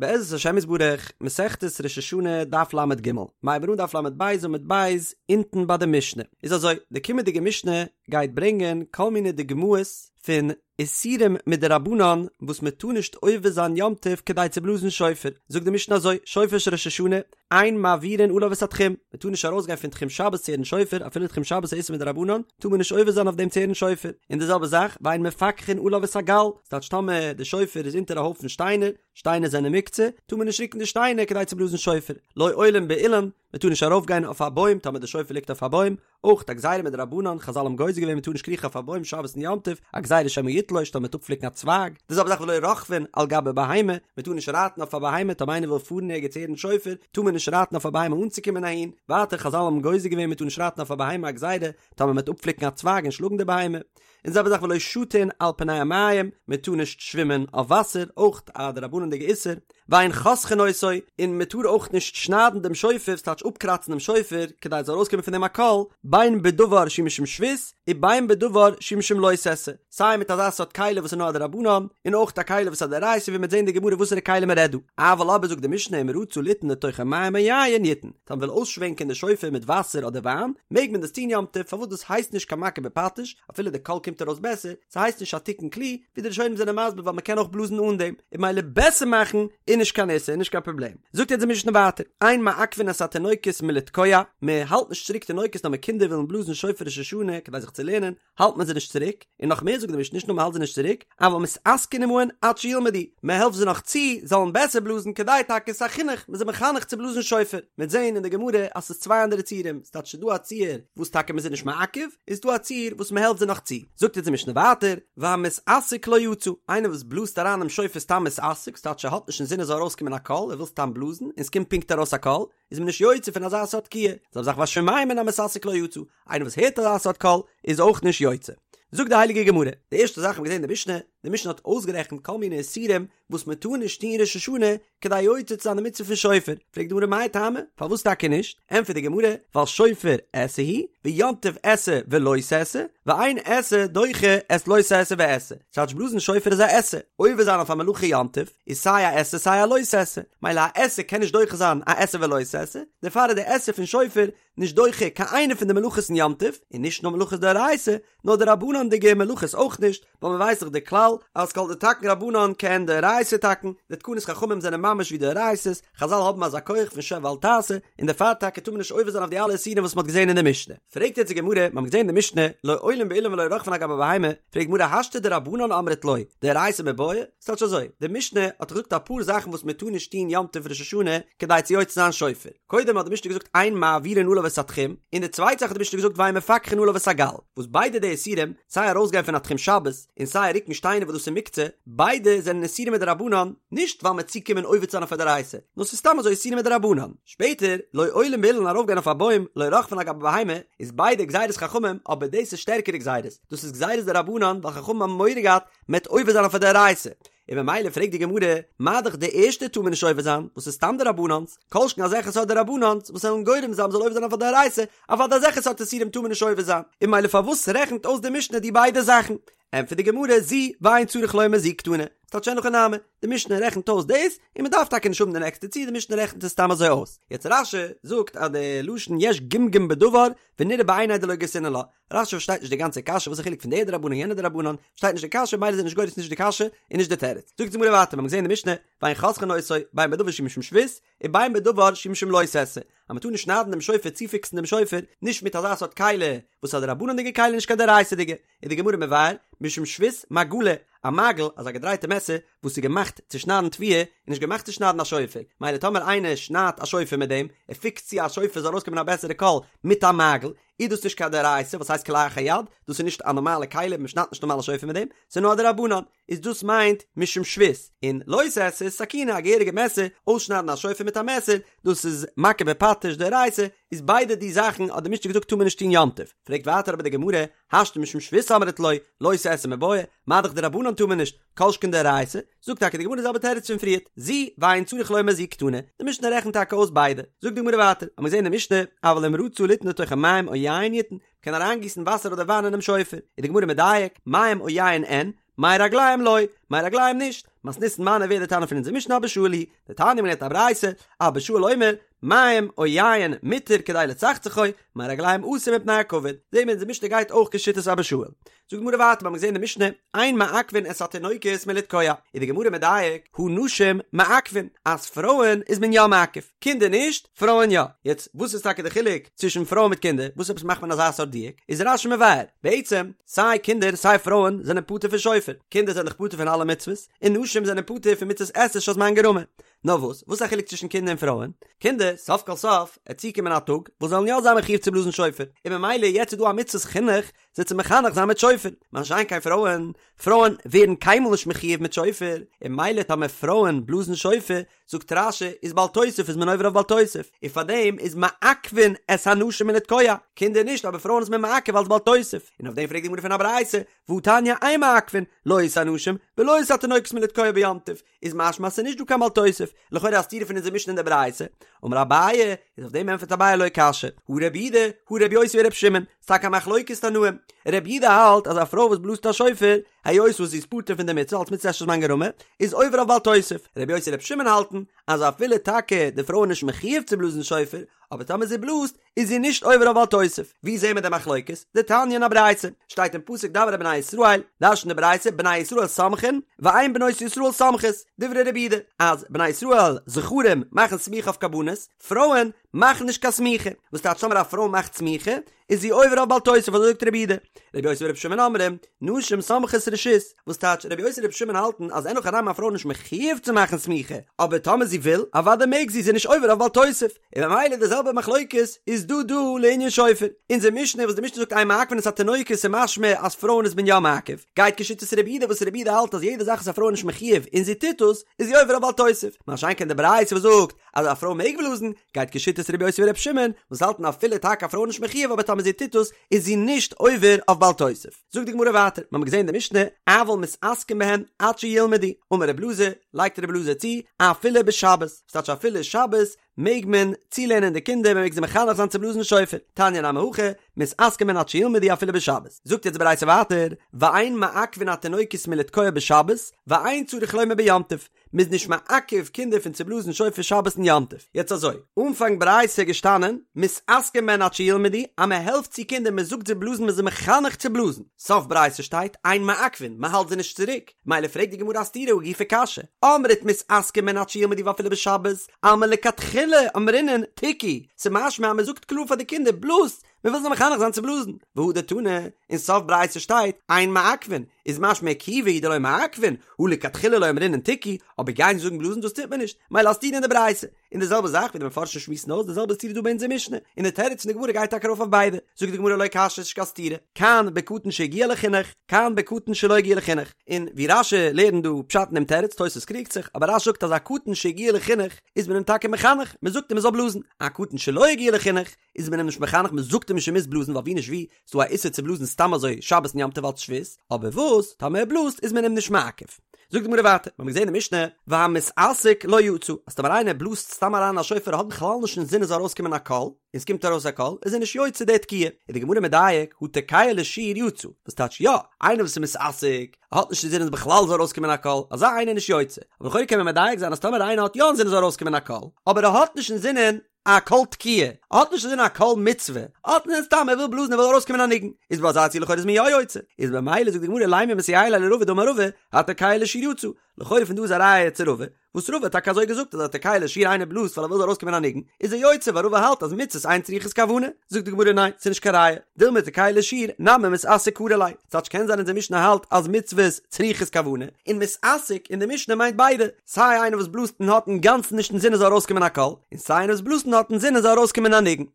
בעזרת השם יתברך, מסכת ראש השנה, דף ל"ג, מ'הייבט אן דף ל"ב עמוד ב', אונטן ביי די משנה. איז אזוי, די קומענדיגע משנה גייט ברענגען כל מיני דוגמאות פון איסורים מדרבנן וואס מען טאר נישט עובר זיין יום טוב כדי צו בלאזן שופר. זאגט די משנה אזוי, שופר של ראש השנה, אין מעבירין עליו את התחום, מען טאר נישט ארויסגיין פון תחום שבת צו הערן שופר, אפילו תחום שבת איז איסור מדרבנן, טאר מען נישט עובר זיין אויף דעם צו הערן שופר, און די זעלבע זאך, ואין מפכחין עליו את הגל, ס'טייטש טאמער די שופר איז אונטער א הויפן שטיינער, שטיינער זענען מוקצה, טאר מען נישט רוקן די שטיינער כדי צו בלאזן שופר, לא עולין באילן, מען טאר נישט ארויפגיין אויף א בוים טאמער די שופר ליגט אויף א בוים, אויך א גזירה מדרבנן, חזל האבן גוזר געווען מען טאר נישט קריכן אויף א בוים שבת און יום טוב, א גזירה שמא יתלוש טאמער מ'וועט אפפליקן א צווייג, די זעלבע זאך ולא רוכבין על גבי בהמה, מען טאר נישט רייטן אויף א בהמה טאמער איינער וויל פארן ערגעץ הערן שופר, טאר מען נישט רייטן אויף א בהמה אנצוקומען אהין, ווייטער חזל האבן גוזר געווען מען טאר נישט רייטן אויף א בהמה א גזירה טאמער מען וועט אפפליקן א צווייג און שלאגן די בהמה, און די זעלבע זאך ולא שטין על פני המים, מען טאר נישט שווימען אויף וואסער, אויך א דרבנן'דיגע איסור, ואין חותכין אותו, און מען טאר אויך נישט שניידן דעם שופר, ס'טייטש אפקראצן דעם שופר, כדי עס זאל ארויסקומען פון דעם א קול, בין בדבר שהוא משום שבות, ובין בדבר שהוא משום לא תעשה, סיי מיט אזא סארט כלי וואס איז נאר א דרבנן, און אויך א כלי וואס איז א דאורייתא ווי מ'וועט זען אין די גמרא וואסערע כלי מען רעדט דא. אבל אבער זאגט די משנה אם רצה ליתן לתוכו מים או יין יתן, טאמער מ'וויל אויסשווענקען די שופר מיט וואסער אדער וויין, מעג מען דאס טון יום טוב, פארוואס דאס הייסט נישט קיין מכה בפטיש, אפילו די קול קומט ארויס בעסער, ס'הייסט נישט א תיקון כלי, ווי די ראשונים זענען מסביר ווייל מ'קען אויך בלאזן אן דעם, און ממילא בעסער מאכן איז נישט קיין איסור און נישט קיין פראבלעם. זאגט יעצט די משנה ווייטער, אין מעכבין את התינוקות מלתקוע, מ'האלט נישט צוריק תינוקות טאמער קינדער ווילן בלאזן שופר ראש השנה כדי זיך צו לערנען, האלט מען זיי נישט צוריק, און נאך מער זאגט די משנה נישט נאר מ'האלט זיי נישט צוריק, אבל מתעסקין עמהן עד שילמדו, מ'העלפט זיי נאך צו זאלן בעסער בלאזן כדי טאקע ס'איז א חינוך, מ'איז זיי מחנך צו בלאזן שופר, מ'וועט זען אין די גמרא אז ס'איז צוויי אנדערע ציורים, ס'טייטש ס'איז דא א ציור וואס טאקע מ'איז זיי נישט מעכב, און ס'איז דא א ציור וואס מ'העלפט זיי נאך צו, זאגט אונז די משנה ווייטער, והמתעסק לא יצא, איינער וואס בלאזט אריין דעם שופר סתם מתעסק, ס'טייטש ער האט נישט אינזין עס זאל ארויסקומען א קול, ער וויל סתם בלאזן, און ס'קומט פונקט ארויס א קול, איז מען נישט יוצא פון אזא סארט תקיעה, זעלבע זאך והשומע מן המתעסק לא יצא, איינער וואס הערט אזא סארט קול איז אויך נישט יוצא. זאגט די הייליגע גמרא, די ערשטע זאך האבן מיר געזען אין די משנה, די משנה האט אויסגערעכנט כל מיני איסורים וואס מען טאר נישט טון ראש השנה כדי יוצא צו זיין די מצוה פון שופר, פרעגט די גמרא מאי טעמא, פארוואס טאקע נישט? ענטפערט די גמרא, ווייל שופר עשה הוא, ויום טוב עשה ולא תעשה, ואין עשה דוחה את לא תעשה ועשה, ס'טייטש בלאזן שופר איז א עשה, עובר זיין אויף א מלאכה יום טוב, איז סיי א עשה סיי א לא תעשה, מילא א עשה קען נישט דוחה זיין א עשה ולא תעשה, דערפאר איז די עשה פון שופר נישט דוחה קיין איינע פון די מלאכות אין יום טוב, און נישט נאר מלאכות דאורייתא, נאר דרבנן'דיגע מלאכות אויך נישט, ווייל מען ווייסט דאך די כלל אז כל דתקון רבנן כעין דאורייתא תקון, די תקנות חכמים זענען ממש ווי דאורייתא'ס, חזל האבן אזא כח פון שב ואל תעשה, און דערפאר טאקע טאר מען נישט עובר זיין אויף די אלע איסורים וואס מען האט געזען אין די משנה. פרעגט יעצט די גמרא, מיר האבן געזען אין די משנה, לא עולין באילן ולא רוכבין על גבי בהמה, פרעגט די גמרא השתא דרבנן אמרת לא, דאורייתא מיבעיא? ס'טייטש אזוי, די משנה האט געזאגט אפאר זאכן וואס מען טאר נישט טון יום טוב ראש השנה כדי צו יוצא זיין שופר. קודם האט די משנה געזאגט אין מעבירין עליו את התחום, און די צווייטע זאך האט די משנה געזאגט ואין מפכחין עליו את הגל, וואס ביידע די איסורים, סיי ארויסגיין פון א תחום שבת, און סיי רוקן שטיינער וואס דאס איז מוקצה, ביידע זענען איסורים מדרבנן, נישט ווייל מ'עט צוקומען עובר צו זיין אויף א דאורייתא, נאר ס'איז סתם אזוי איסורים מדרבנן. שפעטער, לא עולין באילן ארויפגיין אויף א בוים, לא רוכבין על גבי בהמה, איז ביידע גזירות חכמים, אבער דאס איז שטערקערע גזירות, דאס איז גזירות דרבנן ווייל חכמים האבן מורא געהאט מ'עט עובר זיין אויף א דאורייתא, און ממילא פרעגט די גמרא, מה דאך די ערשטע טאר מען נישט עובר זיין, וואס איז סתם דרבנן'ס, כל שכן אזעלכע סארט דרבנן'ס וואס וועלן גורם זיין מ'זאל עובר זיין אויף א דאורייתא, אוודאי אזעלכע סארט איסורים טאר מען נישט עובר זיין, און ממילא פארוואס רעכנט אויס די משנה די ביידע זאכן? ענטפערט די גמרא, זו ואין צריך לומר זו קתני, ס'טייטש אין הכי נמי, די משנה רעכנט אויס דאס, און מ'דארף טאקע נישט האבן די נעקסטע ציור, די משנה רעכנט עס סתם אזוי אויס. יעצט רש"י זאגט אז די לשון יש גמגום בדבר ונראה בעיני דלא גרסינן לה, רש"י פארשטייט נישט די גאנצע קשיא, וואס איז חילוק פון די דרבנן יענע דרבנן, פארשטייט נישט די קשיא, מילא איז ער נישט גורס נישט די קשיא און נישט די תירוץ. זאגט די גמרא ווייטער, מיר האבן געזען אין די משנה, ואין חותכין אותו, בין בדבר שהוא משום שבות, ובין בדבר שהוא משום לא תעשה, אז מען טאר נישט שניידן דעם שופר צופיקסן דעם שופר, נישט מיט אזא סארט כלי וואס איז א דרבנן'דיגע כלי נישט קיין דאורייתא'דיגע, איז די גמרא מבאר, משום שבות מגלא, א מגל, אזא געדרייטע מעסער, וואס איז געמאכט צו שניידן תבואה, איז נישט געמאכט צו שניידן א שופר, מילא טאמער איינער שניידט א שופר מיט דעם, ער פיקסט צו א שופר זאל ארויסקומען א בעסערע קול מיט א מגל, איז דאס נישט קיין דאורייתא וואס הייסט כלאחר יד, דאס איז נישט א נארמאלע כלי, מען שניידט נישט נארמאל א שופר מיט דעם, ס'איז נאר א דרבנן, איז דאס מיינט משום שבות, און לא תעשה איז סכינא א געהעריגע מעסער, אויסשניידן א שופר מיט א מעסער, דאס איז מכה בפטיש דאורייתא, איז ביידע די זאכן האט די משנה געזאגט טאר מען נישט טון יום טוב, פרעגט ווייטער אבער די גמרא, השתא משום שבות אמרת לא, לא תעשה מיבעיא, מה דאך דרבנן טאר מען נישט, כל שכן דאורייתא, זאגט טאקע די גמרא די זעלבע תירוץ פון פריערט, זו ואין צריך לומר זו קתני, די משנה רעכנט טאקע אויס ביידע, זאגט די גמרא ווייטער, האמיר געזען אין די משנה, אבל אם רצה ליתן לתוכו מים או יין יתן, מ'קען אריינגיסן וואסער אדער וויין אינעם שופר, איז די גמרא מדייק, מים או יין אין, מי רגליים לא, מי רגליים נישט, מתניתין מני ווער די תנא פון אונזער משנה אבא שאול היא, דתניא מ'לערנט א ברייתא, אבא שאול אומר, מים או יין מותר כדי לצחצחו, מי רגליים אסור מפני הכבוד. זעהן מיר אונזער משנה גייט אויך כשיטת אבא שאול. זאגט די גמרא ווייטער, מ'האמיר געזעהן אין די משנה, אין מעכבין את התינוקות מלתקוע, איז די גמרא מדייק, הא נשים מעכבין, אז פרויען איז מען יא מעכב, קינדער נישט, פרויען יא. יעצט, וואס איז טאקע די חילוק צווישן פרויען מיט קינדער, וואס עפעס מאכט מען אזא סארט דיוק? איז רש"י מבאר, בעצם, סיי קינדער סיי פרויען זענען פטור פון שופר, קינדער זענען דאך פטור פון אלע מצוות, און נשים זענען פטור פון מצות עשה שהזמן גרמא. נאר וואס, וואס איז א חילוק צווישן קינדער און פרויען? קינדער, סוף כל סוף, עט צוקומען א טאג, וואס זיי וועלן יא זיין מחיוב צו בלאזן שופר, און ממילא יעצט איז דא א מצות חינוך זיי צו מחנך זיין מיט שופר, מה שאין כן פרויען, פרויען ווערן קיינמאל נישט מחיוב מיט שופר, און ממילא טאמער פרויען בלאזן שופר, זאגט רש"י, איז בל תוסיף איז מען עובר אויף בל תוסיף, און פארדעם איז מעכבין את הנשים מלתקוע, קינדער נישט אבער פרויען איז מען מעכב אלס בל תוסיף, און אויף דעם פרעגט די גמרא פון א ברייתא, והתניא אין מעכבין, לא את הנשים ולא את התינוקות מלתקוע ביום טוב, איז משמע אז ס'איז נישט דא קיין בל תוסיף, לכאורה א סתירה פון אונזער משנה און די ברייתא, אמר אביי, איז אויף דעם ענטפערט אביי לא קשיא, הא רבי יהודה, הא רבי יוסי ברבי שמעון, ס'טאקע א מחלוקת תנאים, רבי יהודה האלט אז א פרוי וואס בלאזט א שופר, היות וואס זי איז פטור פון די מצוה אלס מצות עשה שהזמן גרמא, איז עובר אויף בל תוסיף, רבי יוסי און רבי שמעון האלטן אז אפילו טאקע די פרוי איז נישט מחיוב צו בלאזן שופר, אבער טאמער זי בלאזט, איז זי נישט עובר אויף בל תוסיף. ווי זעהן מיר די מחלוקת? דתניא אין א ברייתא, שטייט אין פסוק דבר אל בני ישראל, דרש'נט די ברייתא בני ישראל סומכין, ואין בנות ישראל סומכות, דברי רבי יהודה, אז בני ישראל זכרים מאכן סמיכה אויף קרבנות, פרויען מאכן נישט קיין סמיכה, וואס טייטש טאמער א פרוי מאכט סמיכה, איז זי עובר אויף בל תוסיף אזוי זאגט רבי יהודה. רבי יוסי ברבי שמעון אומרים, נשים סומכות רשות, וואס טייטש רבי יוסי און רבי שמעון האלטן אז אין הכי נמי א פרוי איז נישט מחיוב צו מאכן סמיכה, אבער טאמער זי וויל, אוודאי מעג זי, זי איז נישט עובר אויף בל תוסיף. און ממילא די זעלבע מחלוקת איז דא דא לענין שופר. אונזער משנה וואס די משנה זאגט אין מעכבין את התינוקות איז משמע אז פרויען איז מען יא מעכב, גייט כשיטת רבי יהודה וואס רבי יהודה האלט אז יעדע זאך וואס א פרוי איז נישט מחיוב און זי טוט עס, איז זי עובר אויף בל תוסיף. מה שאין כן די ברייתא וואס זאגט אז א פרוי מעג בלאזן, גייט כשיטת רבי יוסי ברבי שמעון, וואס האלטן אפילו טאקע א פרוי איז נישט מחיוב אבער טאמער זי טוט עס איז זי נישט עובר אויף בל תוסיף. זאגט די גמרא ווייטער, מ'האמיר געזען אין די משנה, אבל מתעסקין בהן עד שילמדו, אמר רב אלעזר, לייגט רב אלעזר צו, אפילו בשבת, וואס טייטש אפילו שבת מעג מען צולערנען די קינדער, מען מעג זיי מחנך זיין צו בלאזן שופר, תניא נמי הכי, מתעסקין בהן עד שילמדו אפילו בשבת. זאגט יעצט די ברייתא ווייטער, ואין מעכבין התינוקות מלתקוע בשבת, ואין צריך לומר ביום טוב, מ'איז נישט מעכב קינדער פון צו בלאזן שופר שבת און יום טוב. יעצט אזוי, אנפאנג ברייתא איז געשטאנען, מתעסקין בהן עד שילמדו, אז מען העלפט צו קינדער, מען זאגט זיי בלאזן, מען איז זיי מחנך צו בלאזן. סוף ברייתא שטייט, אין מעכבין, מען האלט זיי נישט צוריק. מילא פרעגט די גמרא א סתירה הא גופא קשיא, אמרת מתעסקין בהן עד שילמדו ואפילו בשבת, אלמא לכתחילה אמרינן תקעו, ס'משמע אז מען זאגט קלאר פאר די קינדער, בלאזט, מען וויל זיי מחנך זיין צו בלאזן, והדר תנא, אין סוף ברייתא שטייט, אין מעכבין, איז משמע עיכובא הוא דלא מעכבין, הא לכתחילה לא אמרינן תקעו, אבער גיין זאגן בלאזן דאס טוט מען נישט, מילא א סתירה אין די ברייתא. און די זעלבע זאך ווי די מפרשים שמועסן אויס די זעלבע סתירה דא ביי אונזער משנה, און די תירוץ פון די גמרא גייט טאקע ארויף אויף ביידע, זאגט די גמרא לא קשיא ס'נישט קיין סתירה, כאן בקטן שהגיע לחינוך, כאן בקטן שלא הגיע לחינוך, און ווי רש"י לערנט דא פשט אין דעם תירוץ, תוס' קריגט זיך, אבער רש"י זאגט אז א קטן שהגיע לחינוך איז מען אים טאקע מחנך, מען זאגט אים ער זאל בלאזן, א קטן שלא הגיע לחינוך איז מען אים נישט מחנך, מען זאגט אים נישט ער מוז בלאזן ווייל ווי נישט ווי ס'דא א איסור צו בלאזן סתם אזוי שבת און יום טוב אלץ שבות, אבער וואס טאמער ער בלאזט איז מען אים נישט מעכב. זאגט די גמרא ווייטער, מיר האבן געזען אין משנה, והמתעסק לא יצא, אז טאמער איינער בלאזט סתם אריין א שופר האט בכלל נישט אינזין עס זאל ארויסקומען א קול, און עס קומט ארויס א קול, איז ער נישט יוצא די תקיעה. איז די גמרא מדייק, הא תוקע לשיר יצא, וואס טייטש יא, איינער וואס איז מתעסק, האט נישט אינזין אז בכלל זאל ארויסקומען א קול, אזא איינער איז נישט יוצא. אבער לכאורה קען מען מדייק זיין אז טאמער איינער האט יא אינזין עס זאל ארויסקומען א קול, אבער ער האט נישט אינזינען א קול תקיעה, ער האט נישט אינזין א קול מצוה, ער האט אינזין סתם ער וויל בלאזן ער וויל ארויסקומען א ניגון, איז ביי אזא ציור לכאורה איז מען יא יוצא, איז במילא זאגט די גמרא לימא מסייע ליה לרבא דאמר רבא, התוקע לשיר יצא, לכאורה פון דא איז א ראיה צו רבא, וואס רבא האט טאקע אזוי געזאגט אז התוקע לשיר איינער בלאזט ווייל ער וויל זאל ארויסקומען א ניגון, איז ער יוצא ווייל רבא האלט אז מצוות אין צריכות כוונה, זאגט די גמרא ניין ס'איז נישט קיין ראיה, דילמא תוקע לשיר נמי מתעסק קרי ליה, ס'טייטש קען זיין אונזער משנה האלט אז מצוות צריכות כוונה, און מתעסק אין די משנה מיינט ביידע, סיי איינער וואס בלאזט און האט אינגאנצן נישט אינזין עס זאל ארויסקומען א קול, און סיי איינער וואס בלאזט און האט אינזין עס זאל ארויסקומען א ניגון.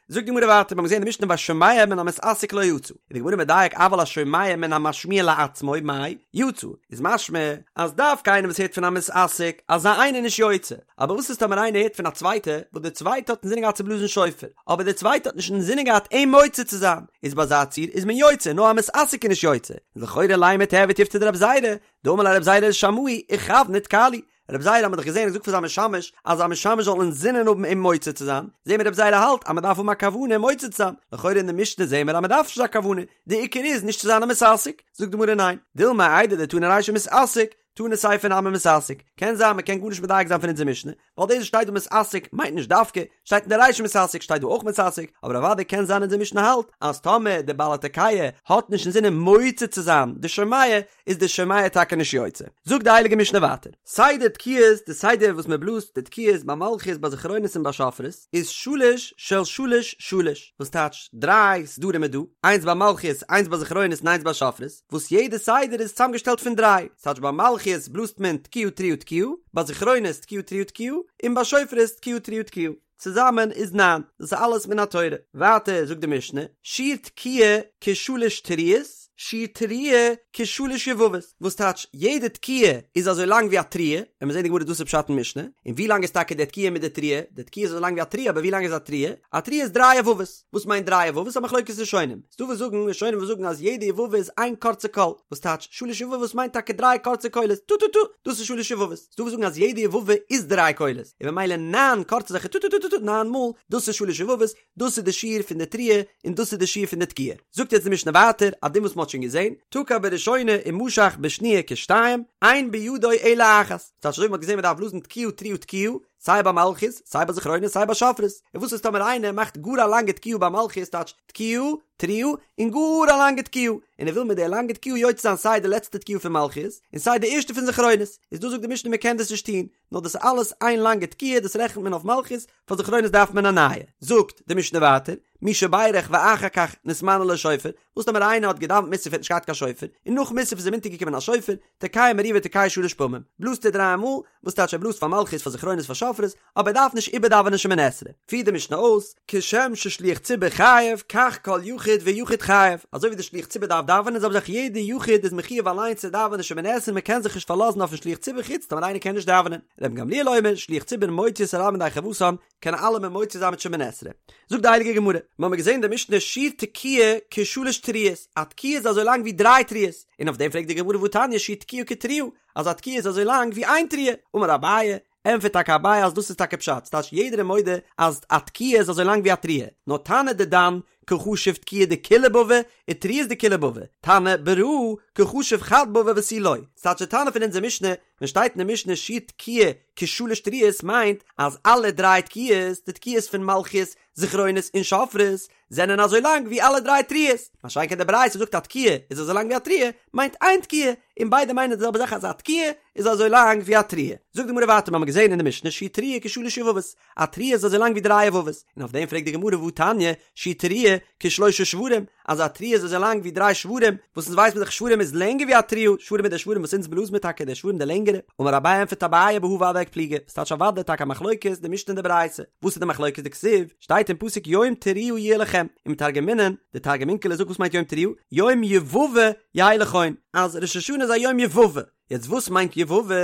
זאגט די גמרא ווייטער, מיר האבן געזען אין די משנה והשומע מן המתעסק לא יצא, איז די גמרא מדייק אבל השומע מן המשמיע לעצמו מאי יצא, איז משמע אז דווקא איינער וואס הערט פון א מתעסק, אזא איינער איז נישט יוצא, אבער וואס איז טאמער איינער הערט פון א צווייטע, וואס דער צווייטע האט אינזינען געהאט צו בלאזן שופר, אבער דער צווייטע האט נישט אינזינען געהאט אים מוציא צו זיין, איז ביי אזא ציור איז מען יוצא, נאר א מתעסק איז נישט יוצא, לכאורה לימא תיהוי תיובתא דרב זירא, דאמר ליה רב זירא לשמעיה איכוון ותקע לי, רב זירא האט מען דאך געזען האט געזאגט פאר זיין משמש אז זיין משמש זאל אינזינען האבן אים מוציא צו זיין, זעהן מיר רב זירא האלט אז מען דארף האבן א כוונה מוציא צו זיין, לכאורה אין די משנה זעהן מיר אז מען דארף נישט אזא כוונה, די עיקר איז נישט צו זיין א מתעסק, זאגט די גמרא ניין, דילמא איידי דתנא רישא מתעסק. תנא סיפא נמי מתעסק, קען זיין מ'קען גארנישט מדייק זיין פון אונזער משנה, ווייל דאס וואס שטייט דא מתעסק מיינט נישט דווקא, שטייט אין די רישא מתעסק שטייט דא אויך מתעסק, אבער אוודאי קען זיין אונזער משנה האלט אז טאמער די בעל התוקע האט נישט אינזינען מוציא צו זיין די שומע איז די שומע טאקע נישט יוצא. זאגט די הייליגע משנה ווייטער. סדר תקיעות, די סדר וואס מען בלאזט די תקיעות ביי מלכיות ביי זכרונות און ביי שופרות איז שלש של שלש שלש, וואס טייטש דריי סדרים איז דא, איינס ביי מלכיות איינס ביי זכרונות און איינס ביי שופרות, וואס יעדע סדר איז צוזאמגעשטעלט פון דריי, ס'טייטש ביי מלכיות בלאזט מען תקיעה תרועה תקיעה, ביי זכרונות תקיעה תרועה תקיעה, און ביי שופרות תקיעה תרועה תקיעה, צוזאמען איז ניין, דאס איז אלעס מן התורה. ווייטער זאגט די משנה, שיעור תקיעה כשלש תרועות, שיעור תרועה כשלש יבבות, וואס טייטש יעדע תקיעה איז אזוי לאנג ווי א תרועה, וועלן מיר זעהן די גמרא דאס איז פשט אין משנה, און ווי לאנג איז טאקע די תקיעה מיט די תרועה, די תקיעה איז אזוי לאנג ווי א תרועה, אבער ווי לאנג איז א תרועה? א תרועה איז דריי יבבות. וואס מיינט דריי יבבות? א מחלוקת ראשונים. ס'דא וואס זאגן, ראשונים וואס זאגן אז יעדע יבבה איז איין קורצע קול, וואס טייטש שלש יבבות מיינט טאקע דריי קורצע קולות, טו טו טו, דאס איז שלש יבבות. ס'דא וואס זאגן אז יעדע יבבה איז דריי קולות, און ממילא ניין קורצע אזעלכע טו טו טו טו טו ניין מאל, דאס איז שלש יבבות, דאס איז די שיעור פון די תרועה, און דאס איז די שיעור פון די תקיעה. זאגט יעצט די משנה ווייטער, א דין וואס מ'האט שוין געזען, תקע בראשונה ומשך בשניה כשתיים, אין בידו אלא אחת. ס'טייטש אזוי ווי מ'האט געזען מ'דארף בלאזן תקיעה תרועה תקיעה, סיי ביי מלכיות, סיי ביי זכרונות, סיי ביי שופרות. און וואס איז טאמער איינער מאכט גאר א לאנגע תקיעה ביי מלכיות, טייטש תקיעה, תרועה, און גאר א לאנגע תקיעה, און ער וויל מיט די לאנגע תקיעה יוצא זיין סיי די לעצטע תקיעה פון מלכיות, און סיי די ערשטע פון זכרונות, איז דא זאגט די משנה מען קען דאס נישט טון, נאר דאס איז אלעס איין לאנגע תקיעה, דאס רעכנט מען אויף מלכיות, פאר זכרונות דארף מען א נייע. זאגט די משנה ווייטער, מי שבירך ואחר כך נתמנה לו שופר, וואס טאמער איינער האט געדאווענט מוסף האט נישט געהאט קיין שופר, און נאך מוסף איז אים אונטערגעקומען א שופר, תוקע מריבה תוקע שלש פעמים, בלאזט ער דריי מאל, וואס טייטש ער בלאזט פאר מלכיות פאר זכרונות פאר שופרות, אבער ער דארף נישט איבערדאווענען שמונה עשרה. פירט די משנה אויס, כשם ששליח ציבור חייב, כך כל יחיד ויחיד חייב, אזוי ווי די שליח ציבור דארף דאווענען זעלבע זאך יעדע יחיד איז מחויב אליין צו דאווענען שמונה עשרה מען קען זיך נישט פארלאזן אויפן שליח ציבור חוץ טאמער איינער קען נישט דאווענען. רבן גמליאל אומר, שליח ציבור מוציא את הרבים ידי חובתן, קען אלעמען מוציא זיין מיט שמונה עשרה. זאגט די הייליגע גמרא, מיר האבן געזען אין די משנה שיעור תקיעה כשלש תרועות, א תקיעה איז אזוי לאנג ווי דריי תרועות, און אויף דעם פרעגט די גמרא והתניא שיעור תקיעה כתרועה, אז א תקיעה איז אזוי לאנג ווי איין תרועה, אמר אביי, ענטפערט טאקע אביי אז דאס איז טאקע פשט, ס'טייטש יעדער איז מודה אז א תקיעה איז אזוי לאנג ווי א תרועה, נאר תנא דידן קא חשיב תקיעה דכולהו בבי, ותרועות דכולהו בבי, תנא ברא קא חשיב חד בבא ותו לא, ס'טייטש די תנא פון אונזער משנה ווען שטייט אין די משנה שיעור תקיעה כשלש תרועות מיינט אז אלע דריי תקיעות, די תקיעות פון מלכיות, זכרונות און שופרות, זענען אזוי לאנג ווי אלע דריי תרועות, מה שאין כן די ברייתא זאגט א תקיעה איז אזוי לאנג ווי א תרועה, מיינט איין תקיעה, און ביידע מיינען די זעלבע זאך אז א תקיעה איז אזוי לאנג ווי א תרועה. זאגט די גמרא ווייטער מיר האבן געזען אין די משנה שיעור תרועה כשלש יבבות, א תרועה איז אזוי לאנג ווי דריי יבבות, און אויף דעם פרעגט די גמרא והא תניא, שיעור תרועה כשלושה שברים, אז א תרועה איז אזוי לאנג ווי דריי שברים, וואס אונז ווייסט מען דאך שברים איז לענגער ווי א תרועה, שברים איז די שברים וואס אונז בלאזן מיר טאקע די שברים די לענגערע, אמר אביי ענטפערט אביי בהא ודאי קפליגי, ס'טייטש אוודאי טאקע א מחלוקת די משנה און די ברייתא, וואס איז די מחלוקת דכתיב, שטייט אין פסוק יום תרועה יהיה לכם, ומתרגמינן, די תרגום אונקלוס זאגט וואס מיינט יום תרועה, יום יבבה יהא לכון, אז ראש השנה איז א יום יבבה, יעצט וואס מיינט יבבה?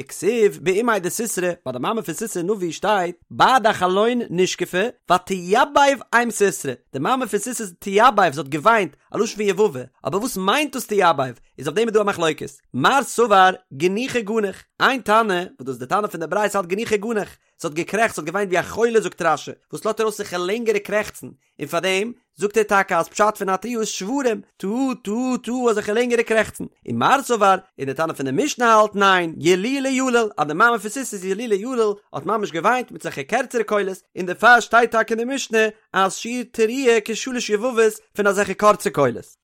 וכתיב באימיה דסיסרא, ביי די מאמע פון סיסרא נביא שטייט, בעד החלון נשקפה, ותיבב אם סיסרא, די מאמע פון סיסרא איז תיבב, זי האט געוויינט, א לשון פון יבבה, אבער וואס מיינט דאס תיבב? איז אויף דעם איז דא א מחלוקת, מר סבר גנוחי גנח, איין תנא, וואס דאס איז די תנא פון די ברייתא האלט גנוחי גנח, זי האט געקרעכצט, זי האט געוויינט ווי א חולה זאגט רש"י, וואס לאזט ארויס זיך לענגערע קרעכצן, און פאר דעם זאגט ער טאקע אז פשט פון א תרועה איז שברים, טו טו טו אזעלכע לענגערע קרעכצן, ומר סבר, און די תנא פון די משנה האלט ניין, ילולי יליל, אז די מאמע פון סיסרא איז ילולי יליל, האט ממש געוויינט מיט אזעלכע קערצערע קולות, און דערפאר שטייט טאקע אין די משנה אז שיעור תרועה כשלש יבבות פון אזעלכע קורצע קולות.